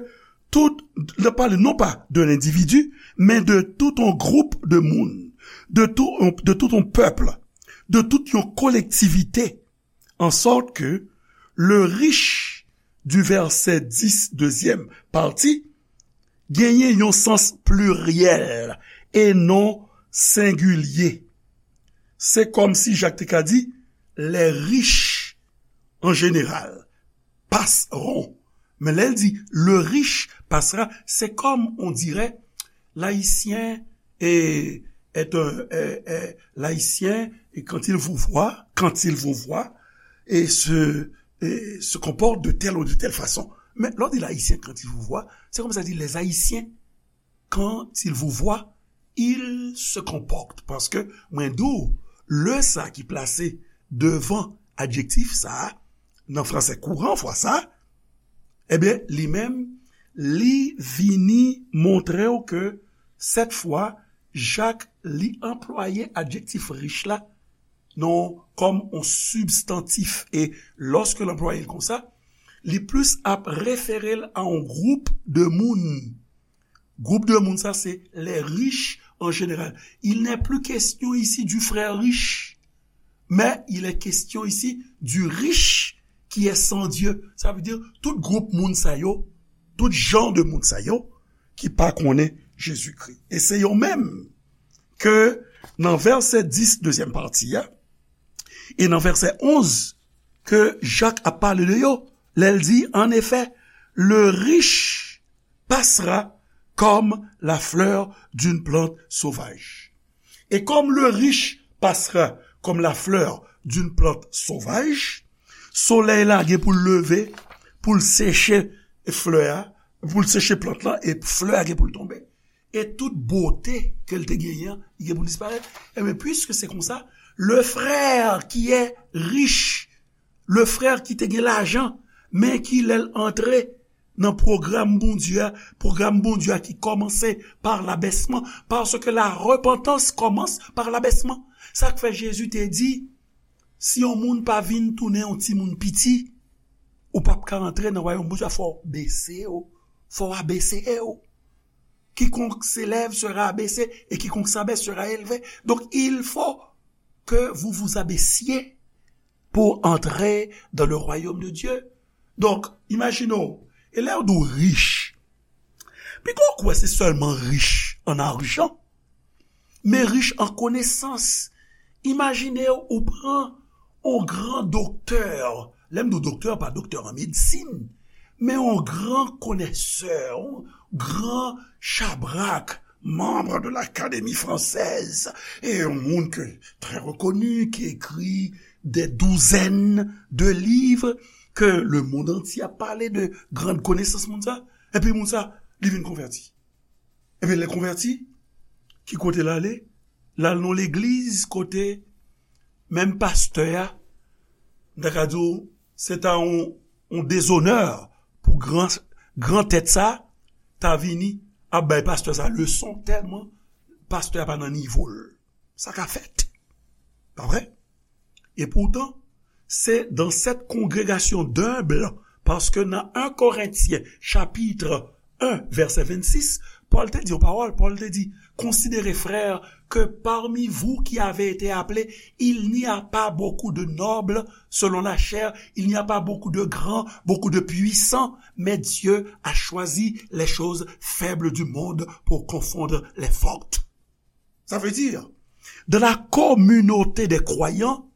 tout, l ap pale non pa de lendividi, men de tout yon gwoup de moun, de tout yon, de tout yon pèp, de tout yon kolektivite. An sòt ke le riche du verset dix, dezyèm pati, genyen yon sans pliryèl e non sengilye. Se kòmsi Jak te ka di, les riches en général passeront. Men lè l di le riche passera, c'est comme on dirait l'Haïtien est, est un, est, est, l'Haïtien, et quand il vous voit, quand il vous voit, et se, et se comporte de telle ou de telle façon. Men lè w di l'Haïtien, quand il vous voit, se kòmsi w di les Haïtiens, quand il vous voit, il se comporte. Paske mwen di w, le sa ki plase devan adjektif sa a, nan fransè kouran fwa sa, ebyen, li menm, li vini montre w ke sèt fwa, Jak, li anplwaye adjektif rich la, non, kòm yon sibstantif. E lòske l anplwaye l konsa, li plis ap refere l a yon gwoup de moun. Gwoup de moun sa, se les riches en général. Il n'est plus question ici du frère riche, mais il est question ici du riche qui est sans Dieu. Sa vle di, tout gwoup moun sa yo, tout jan de moun sa yo, ki pa konnen Jezikri. E se yo menm ke nan vèsè dis, dezyèm pati a, e nan vèsè onz, ke Jak ap pale de yo, lè l di, en effet, le riche passera comme la fleur d'une plante sauvage. Et comme le riche passera comme la fleur d'une plante sauvage, solèy la gen pou l leve, pou l seche flè a, pou l seche plant lan, e flè a gen pou l tonbe. E tout bote ke l te genyen an, li gen pou l disparèt. Ebyen, puiske se konsa, le frère qui est riche, le frère ki te gen lajan, men ki lè l antre nan pwogram Bondye a, pwogram Bondye a ki kòmanse par l'abaissement, parce que la repentance commence par l'abaissement. Sa k fè Jezi te di, si yon moun pa vin tounen yon timoun piti, ou p ap ka antre nan wayòm Bondye a, fò w bese w, fò w abese w. Quiconque s'élève sera abaissé et quiconque s'abaisse sera élevé. Donc, il faut que vous vous abaissiez pour entrer dans le royaume de Dieu. Donk, imajine w, e lè yo di w rich, piga w kwè se sèlman rich an ajan, men rich an konesans. Imajine w, ou pran yon gran doktè, lè m di w doktè, pa doktè an medsin, men yon gran konesè, yon gran chabrak, membre de l'Académie française, e yon moun ke trè rekoni, ki ekri des douzaines de livres, ke lemonn antye ap pale de gran konesans moun sa, epi moun sa, li vin konvèti. Epi lè konvèti, ki kote l ale? L al nan legliz kote menm pastè a, m ta ka di w, se ta yon, yon dezonè pou gran, gran tèt sa, ta vini ap bay pastè sa leson tèlman pastè a pa nan nivo l. Sa ka fèt. Pa vre? E poutan, se dans cette congrégation d'humbles, paske nan en Korentyen, chapit en, vèsè vennsis, Pòl te di yon pawòl, Pòl te di, considérez, frères, que parmi vous qui avez été appelés, il n'y a pas beaucoup de nobles selon la chair, il n'y a pas beaucoup de grands, beaucoup de puissants, mais Dieu a choisi les choses faibles du monde pour confondre les fortes. Ça veut dire, dans la communauté des croyants,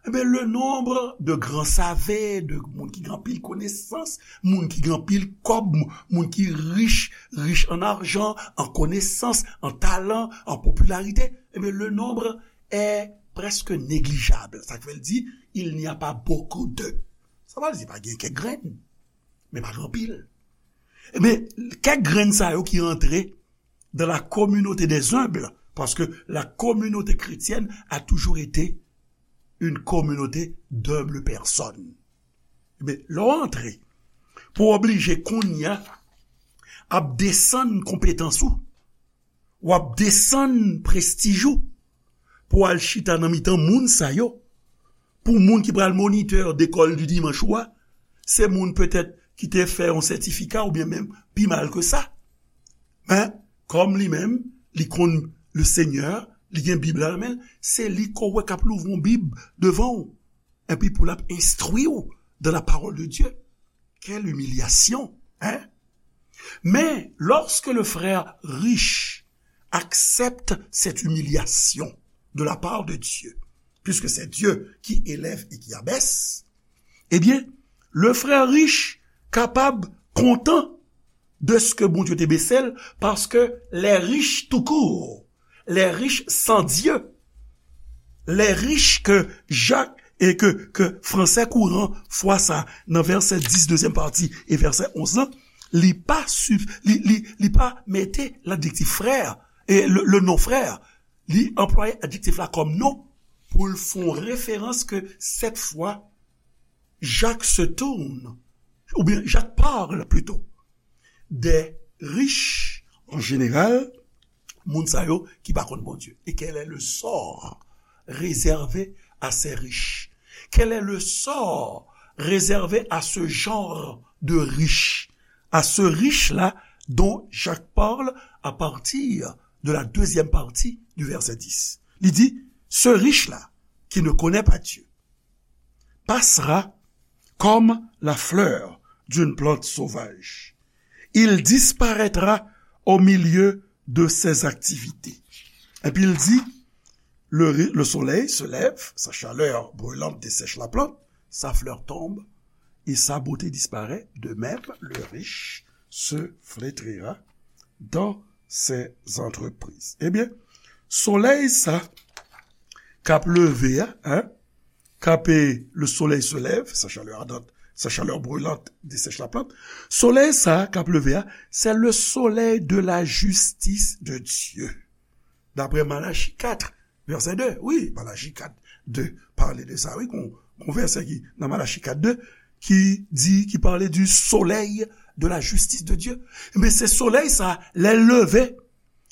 Ebyen, le nombre de grands savants, de moun ki gen anpil konesans, moun ki gen anpil kòb, moun ki rich, rich an ajan, an konesans, an talan, an popilarite, ebyen, le nombre est presque négligeable. Sa k fè l di, il n'y a pas beaucoup de. Sa pa vle di pa gen kèk grenn, men pa gen anpil. Ebyen, kèk grenn sa yo ki rantre dans la communauté des humbles, parce que la communauté chrétienne a toujours été une communauté d'humbles personnes. Men lè w antre, pou w oblije kounye a ap desann konpetans ou, w ap desann prestij ou, pou w al chita nan mitan moun sa yo, pou moun ki pral monitè dekòl di dimanch ou a, se moun petèt ki te fè yon sètifika oubyen menm pi mal ke sa. Men, kòm li menm, li konn le Senyè, li gen Bib la nan men l, se li ke w wè k ap louvri yon Bib devan w, epi pou l ap enstwi w dans la parole de Dieu. Quelle humiliation, hein? Mais lorsque le frère riche accepte cette humiliation de la part de Dieu, puisque c'est Dieu qui élève et qui abaisse, eh bien, le frère riche kapab kontan de ce que Bondye te bese l, paske les riches tout court, les riches sans Dieu, les riches que Jacques et que, que français courant fwa sa nan vèsè dis, dezyèm pati, e vèsè onz lan, li pa, li, li, li pa mete ladjektif frè, e le, le non frè, li anplwaye adjektif la kòm non pou l fè yon referans ke cette fois, Jacques se tourne, oubyen Jacques parle plutôt, des riches en général, moun sa yo ki pa konn Bondye. Et quel est le sort réservé à ces riches? Quel est le sort réservé à ce genre de riche? À ce riche-là dont Jacques parle à partir de la deuxième partie du verset dix. Li di, ce riche-là qui ne connaît pas Dieu passera comme la fleur d'une plante sauvage. Il disparaîtra au milieu de ses activités. Epi l di, le, le soleil se lève, sa chalè brilant desèch la plant, sa flè tonbe, e sa bote disparèt, de même le riche se flétrira dans ses entreprises. Ebyen, solèy sa k ap leve a, hein, k ap, le soleil se lève, sa chalè ardante, sa chalè brilant desèch la plant. Solèy sa k ap leve a, c'est le soleil de la justice de Dieu. D'après Malachie quatre, verset deux. Wi, Malachie quatre, deux pale de sa, wi, gon, gon vèsè ki nan Malachie quatre deux ki di, ki pale du soleil de la justice de Dieu. Men se solèy sa, lè l leve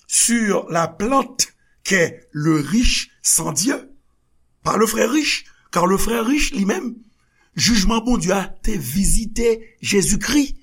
sur la plante qu'est le riche sans Dieu, par le frère riche, car le frère riche li menm, jijman Bondye a te vizite Jezikri.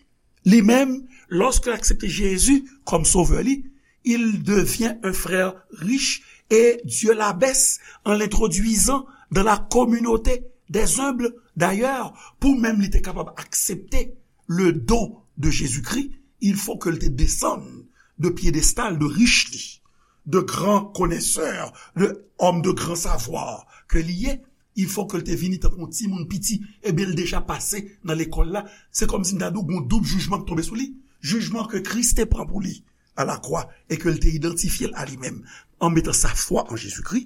Li menm, lorsqu'il accepte Jésus comme sauveur li, il devient un frère riche et Dieu l'abaisse en l'introduisant dans la communauté des humbles. D'ailleurs, pou menm li te kapab aksepte le don de Jésus-Christ, il faut ke l te desann de pyedestal de rich li, de gran konesè, de òm de gran savwa ke li ye. Il faut ke l te vini tankou yon timoun piti, ebyen l deja pase nan lekòl la. Se kòmsi m ta di w gon doub jijman k tonbe sou li. Jijman ke Kris te pran pou li a lakwa e ke l te idantifye l a li menm an metan sa fwa an Jezikri.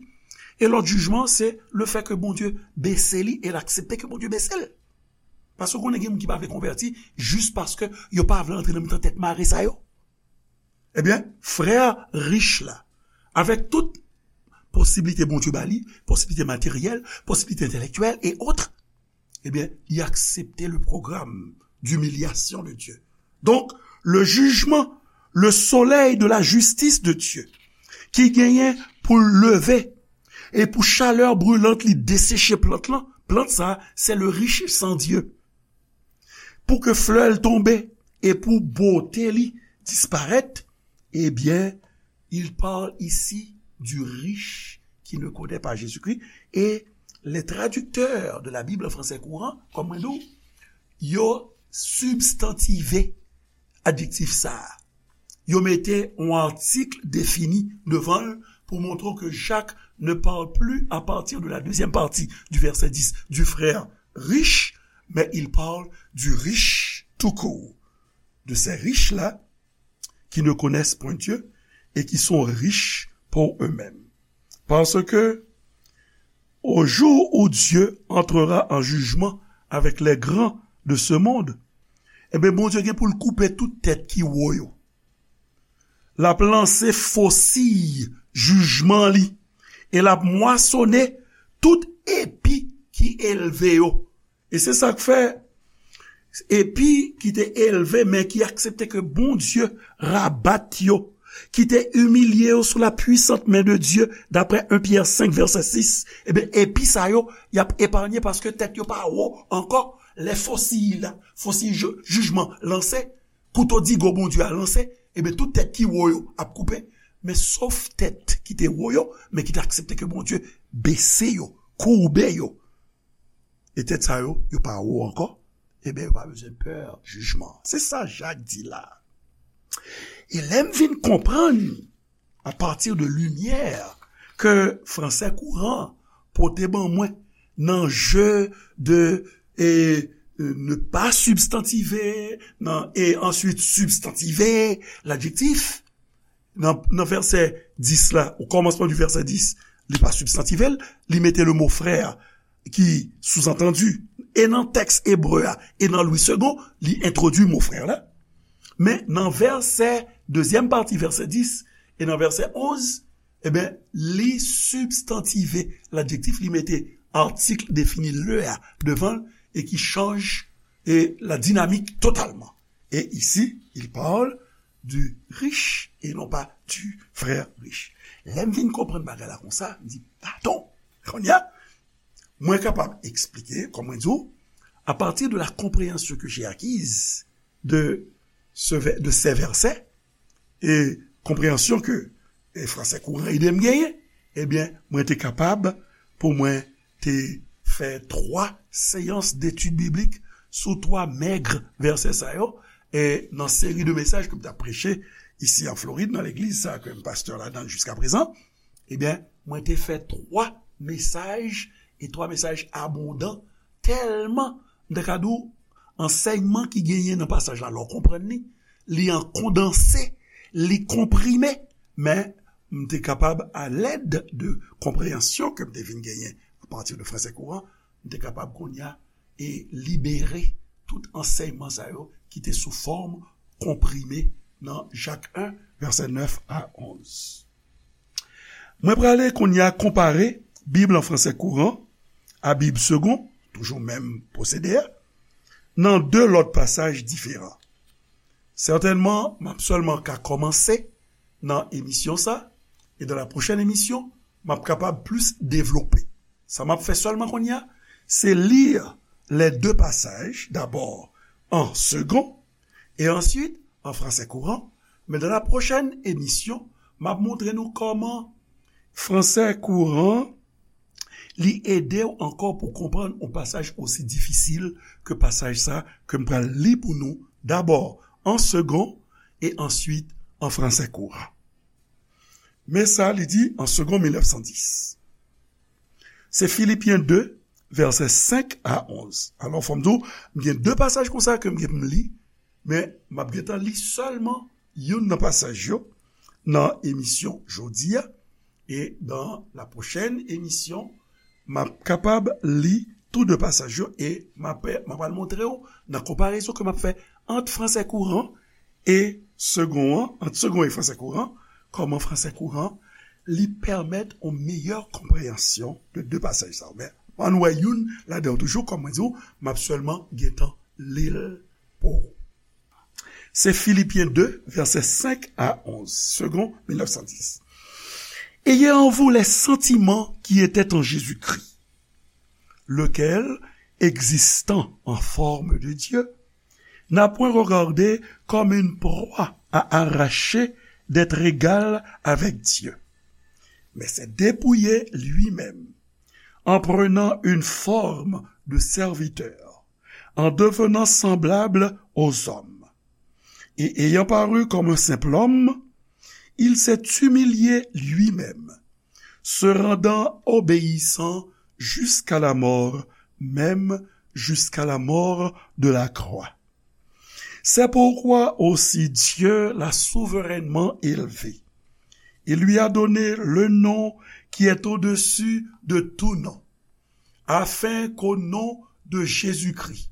E lòt jijman, se le fè ke Bondye bese li e l aksepte ke Bondye bese l. Paske w konnen gen moun ki pa vle konvèti jis paske yo pa vle antre nan mitan tèt mare sa yo. Ebyen, frè rich la, avèk tout posiblite Bondye ba li, posiblite materyèl, posiblite entèlektyèl e otre, ebyen, li aksepte le programme d'humiliation de Dieu. Donk, le jijman, le solèy de la jistis de Dye, ki genyen pou l leve e pou chalè brilant li deseche plant lan, plant sa, se le riche sans Dieu. Pou ke flè l tonbe e pou bote li disparèt, ebyen, il parle ici du riche qui ne connaît pas Jésus-Christ. Et les traducteurs de la Bible en français courant, kòm mwen di w, yo sibstantive adjektif sa a. Yo mete yon atik defini devan l pou montre w ke Jak ne parle plus à partir de la deuxième partie du verset dix du frère riche, mais il parle du riche tout court, de ces riches-là qui ne connaissent point Dieu et qui sont riches pour eux-mêmes. Parce que au jour où Dieu entrera en jugement avec les grands de ce monde, ebyen, Bondye gen pou l koupe tout tèt ki wo yo. L ap lanse fosiy jijman li e l ap mwasonnen tout epi ki elve yo. E se sa k fè epi ki te elve, men ki aksepte ke Bondye rabat yo, ki te imilye yo sou la puisante main de Dieu, d'après un Pierre cinq, verset six, ebyen, epi sa yo, y ap epaye paske tèt yo pa wo ankò. Lè fosiy la, fosiy jijman lanse, kouto digo Bondye a lanse, ebyen, tout tèt ki wo yo ap koupe, men sof tèt ki te wo yo, men ki te aksepte ke Bondye bese yo, koube yo. E tèt sa yo, yo pa wo ankò, ebyen, yo pa bezwen pè jijman. Se sa Jak di la. E lè m vin konprann, à partir de limyè ke Fransè Kouran pote ban mwen nan je de e, e, ne pas substantiver, nan, e answit substantiver ladjektif, nan, nan vèsè dis la, o kòmansman di vèsè dis, li pa sibstantive l, li mete le mo frè ki souzantandi, e nan tèks ebre a, e nan Louis Segond, li entwodui mo frè la. Men nan vèsè, dezyèm pati vèsè dis, e nan vèsè onz, ebyen, li sibstantive ladjektif, li mete atik defini le a devan l, e ki chanje la dinamik totalman. Et ici, il parle du riche et non pas du frère riche. Lè m vin konprann bagay la konsa, m di, "Atann, kounye a, mwen kapab eksplike, kòm mwen di w, à partir de la compréhension que j'ai acquise de ce vè-, de ces versets, e konpreyansyon ke, e, Fransè Kouran ede m genyen, ebyen, mwen te kapab pou mwen te fè twa seyans detid biblik sou twa mèg vèsè sa yo, e nan seri de mesaj ke m t ap preche isi an Florid, nan legliz sa ke m pastè ladan l jiskaprezan, ebyen, mwen te fè twa mesaj, e twa mesaj abondan, tèlman, m ta ka di w, ansèyman ki genyen nan pasaj la, lè w konprann li, li an kondanse, li konprime, men m te kapab, alèd de konpreyansyon ke m te vin genyen apati de Fransè Kouran, m te kapab kounye a e libere tout ansèyman sa yo ki te sou fòm konprime nan Jak en, vèsè nèf a onz. Mwen prale kounye a konpare Bib an Fransè Kouran a Bib Segond, toujou menm pwosede a, nan de lòt pasaj diferan. Sètènman, m ap sèlman ka kòmanse nan emisyon sa, e dans la prochaine émission, m ap kapab plis devlope. Sa m ap fè sèlman kounye a, se li les deux passages, d'abord en Segond, e answit an Fransè Kouran, men dans la prochaine émission, m ap montre nou kòman Fransè Kouran, li ede w ankò pou konprann yon pasaj osi difisil ke pasaj sa ke m pral li pou nou, dabò an Segond e answit an Fransè Kouran. Men sa li di an Segond mil nèf san dis. Se Filipyen de, vèsè senk a onz. Alò, fò m di w, m gen de pasaj konsa ke m gen pou m li, men m ap gentan li sèlman youn nan pasaj yo nan emisyon jodi a. E dans la prochaine émission, m ap kapab li tou de pasaj yo e m ap, m ap al montre w nan konparezon ke m ap fè ant Fransè Kouran e Segond an, ant Segond e Fransè Kouran, kòman Fransè Kouran, li pèmèt yon meyè konpreyansyon de de pasaj sa yo. Men, ann wè youn ladan yo toujou, kòm mwen di w, m ap sèlman gentan li l pou ou. Se Filipyen de, vèsè senk a onz, Segond mil nèf san dis. Ayez en vous les sentiments qui étaient en Jésus-Christ, lequel, existant en forme de Dieu, n'a point regardé comme une proie à arracher d'être égal avec Dieu, mais s'est dépouillé lui-même en prenant une forme de serviteur, en devenant semblable aux hommes. Et ayant paru comme un simple homme, il s'est humilié lui-même, se rendant obéissant jusqu'à la mort, même jusqu'à la mort de la croix. C'est pourquoi aussi Dieu l'a souverainement élevé et lui a donné le nom qui est au-dessus de tout nom, afin qu'au nom de Jésus-Christ,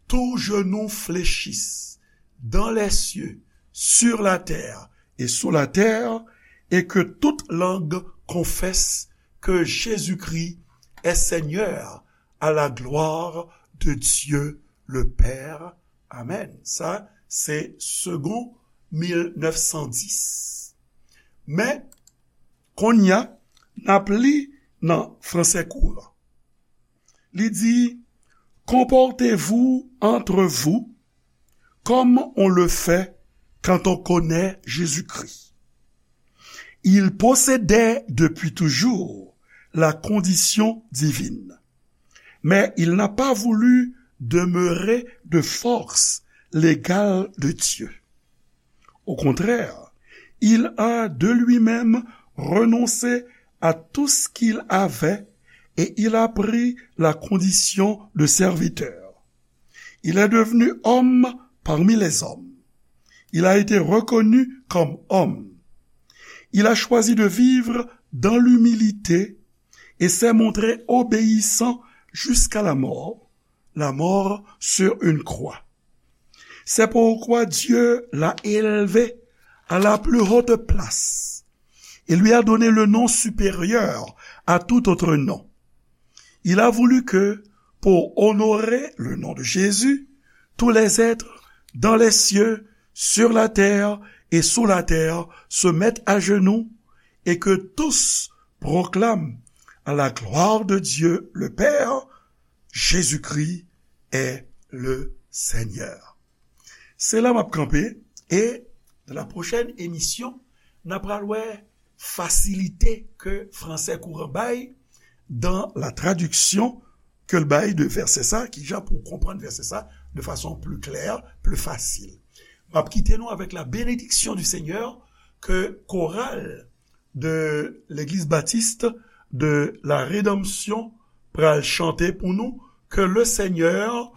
tout genou fléchisse dans les cieux, sur la terre et sous la terre, et que toute langue confesse que Jésus-Christ est Seigneur, à la gloire de Dieu le Père. Amen. Sa, se Segond mil nèf san dis. Men, kounye a, n ap li nan fransè kouran. Li di, comportez-vous entre vous comme on le fait quand on connaît Jésus-Christ. Il possédait depuis toujours la condition divine, mais il n'a pas voulu demeurer de force l'égal de Dieu. Au contraire, il a de lui-même renoncé à tout ce qu'il avait et il a pris la condition de serviteur. Il est devenu homme parmi les hommes. Il a été reconnu comme homme. Il a choisi de vivre dans l'humilité et s'est montré obéissant jusqu'à la mort, la mort sur une croix. C'est pourquoi Dieu l'a élevé à la plus haute place et lui a donné le nom supérieur à tout autre nom. Il a voulu que, pour honorer le nom de Jésus, tous les êtres dans les cieux, sur la terre et sous la terre se mettent à genoux et que tous proclament à la gloire de Dieu le Père, Jésus-Christ est le Seigneur. Se la m ap kanpe, e nan la pwochèn emisyon, n ap pral wè fasilite ke fransè kouran bay dans la traduction ke l bay de vèsè sa, kijan pou w konprann vèsè sa de fason pli klè, pli fasil. M ap kite nou avèk la bénédiction du Seigneur ke koral de Legliz Batis de la Rédemption pral chante pou nou, ke le Seigneur